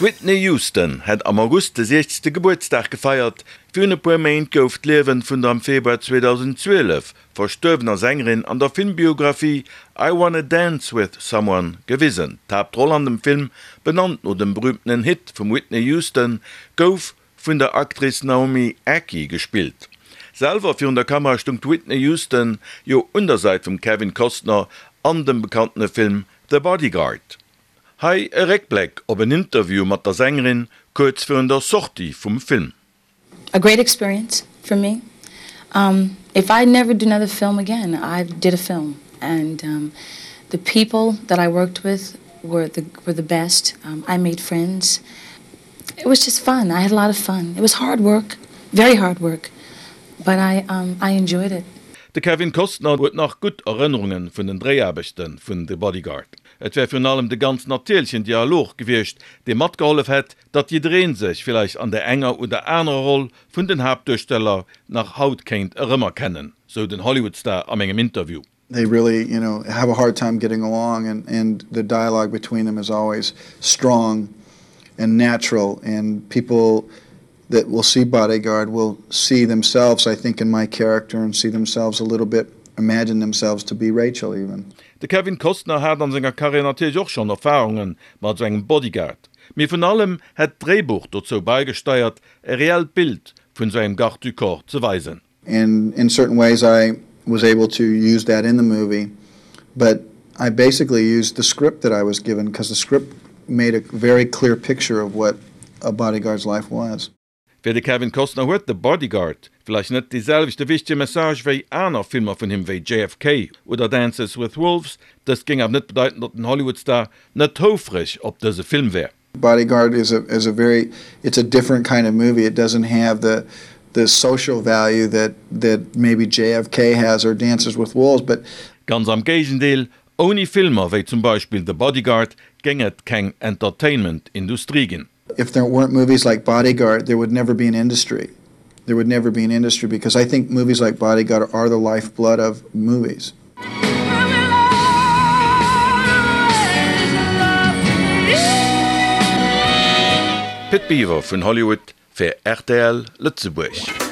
D'Whitney Houston hätt am August de 60. Gebuertsdag gefeiert. Virun e puer Méint gouf d'Liewen vun der am Februar 2012 verstuerwener Sängerin an der Filmbiographie I Wanna Dance With Someone gewisen. D'Haaptroll an dem Film, benannt no dem berüümtenen Hit vum Whitney Houston, gouf vun der Actrice Naomi Ackie gespillt. Selwer virun der Kamera stung d'Whitney Houston jo un der Säit vum Kevin Costner an dem bekanntene Film The Bodyguard. Hei e Réckbléck op en Interview mat der Sängerin kuerz virun der Sortie vum Film. A great experience for me. Um, if I never do another film again, I did a film and um, the people that I worked with were the, were the best. Um, I made friends. It was just fun. I had a lot of fun. It was hard work, very hard work, but I, um, I enjoyed it. De Kevin Costner huet nach gutt Erënnerunge vun den Dréiaarbechte vun The Bodyguard. Et wär virun allem de ganz natierlechen Dialog gewiescht, dee matgehollef hätt, datt jidderee sech villäicht an der enger oder anerer Roll vun den Haaptduersteller nach haut kéint erëmerkennen, sou den Hollywood-Star a mengem Interview. They really, you know, have a hard time getting along and and the dialogue between them is always strong and natural and people that will see Bodyguard will see themselves, I think, in my character and see themselves a little bit, imagine themselves to be Rachel even. De Kevin Costner hat an senger Karriär natierlech och schonn Erfarunge mat esou engem Bodyguard, mee vun allem hätt d'Dréibuch dozou baigesteiert, e reellt Bild vun esou engem Garde du corps ze weisen. And in certain ways I was able to use that in the movie, but I basically used the script that I was given because the script made a very clear picture of what a bodyguard's life was. Fir de Kevin Costner huet The Bodyguard vläicht net dee selwechte wichtege Message wéi aner Filmer vun him wéi JFK oder Dances with Wolves. Dëst géing awer net bedeiten, datt den Hollywood-Star net houfreg op dëse Film wär. Bodyguard is a is a very it's a different kind of movie. It doesn't have the the social value that that maybe JFK has or Dances with Wolves, but. Ganz am Géigendeel, ouni Filmer wéi zum Beispill The Bodyguard géing et keng Entertainment-Industrie ginn. If there weren't movies like Bodyguard, there would never be an industry. There would never be an industry because I think movies like Bodyguard are the lifeblood of movies. Pit Biwer vun Hollywood fir rtl Lëtzebuerg.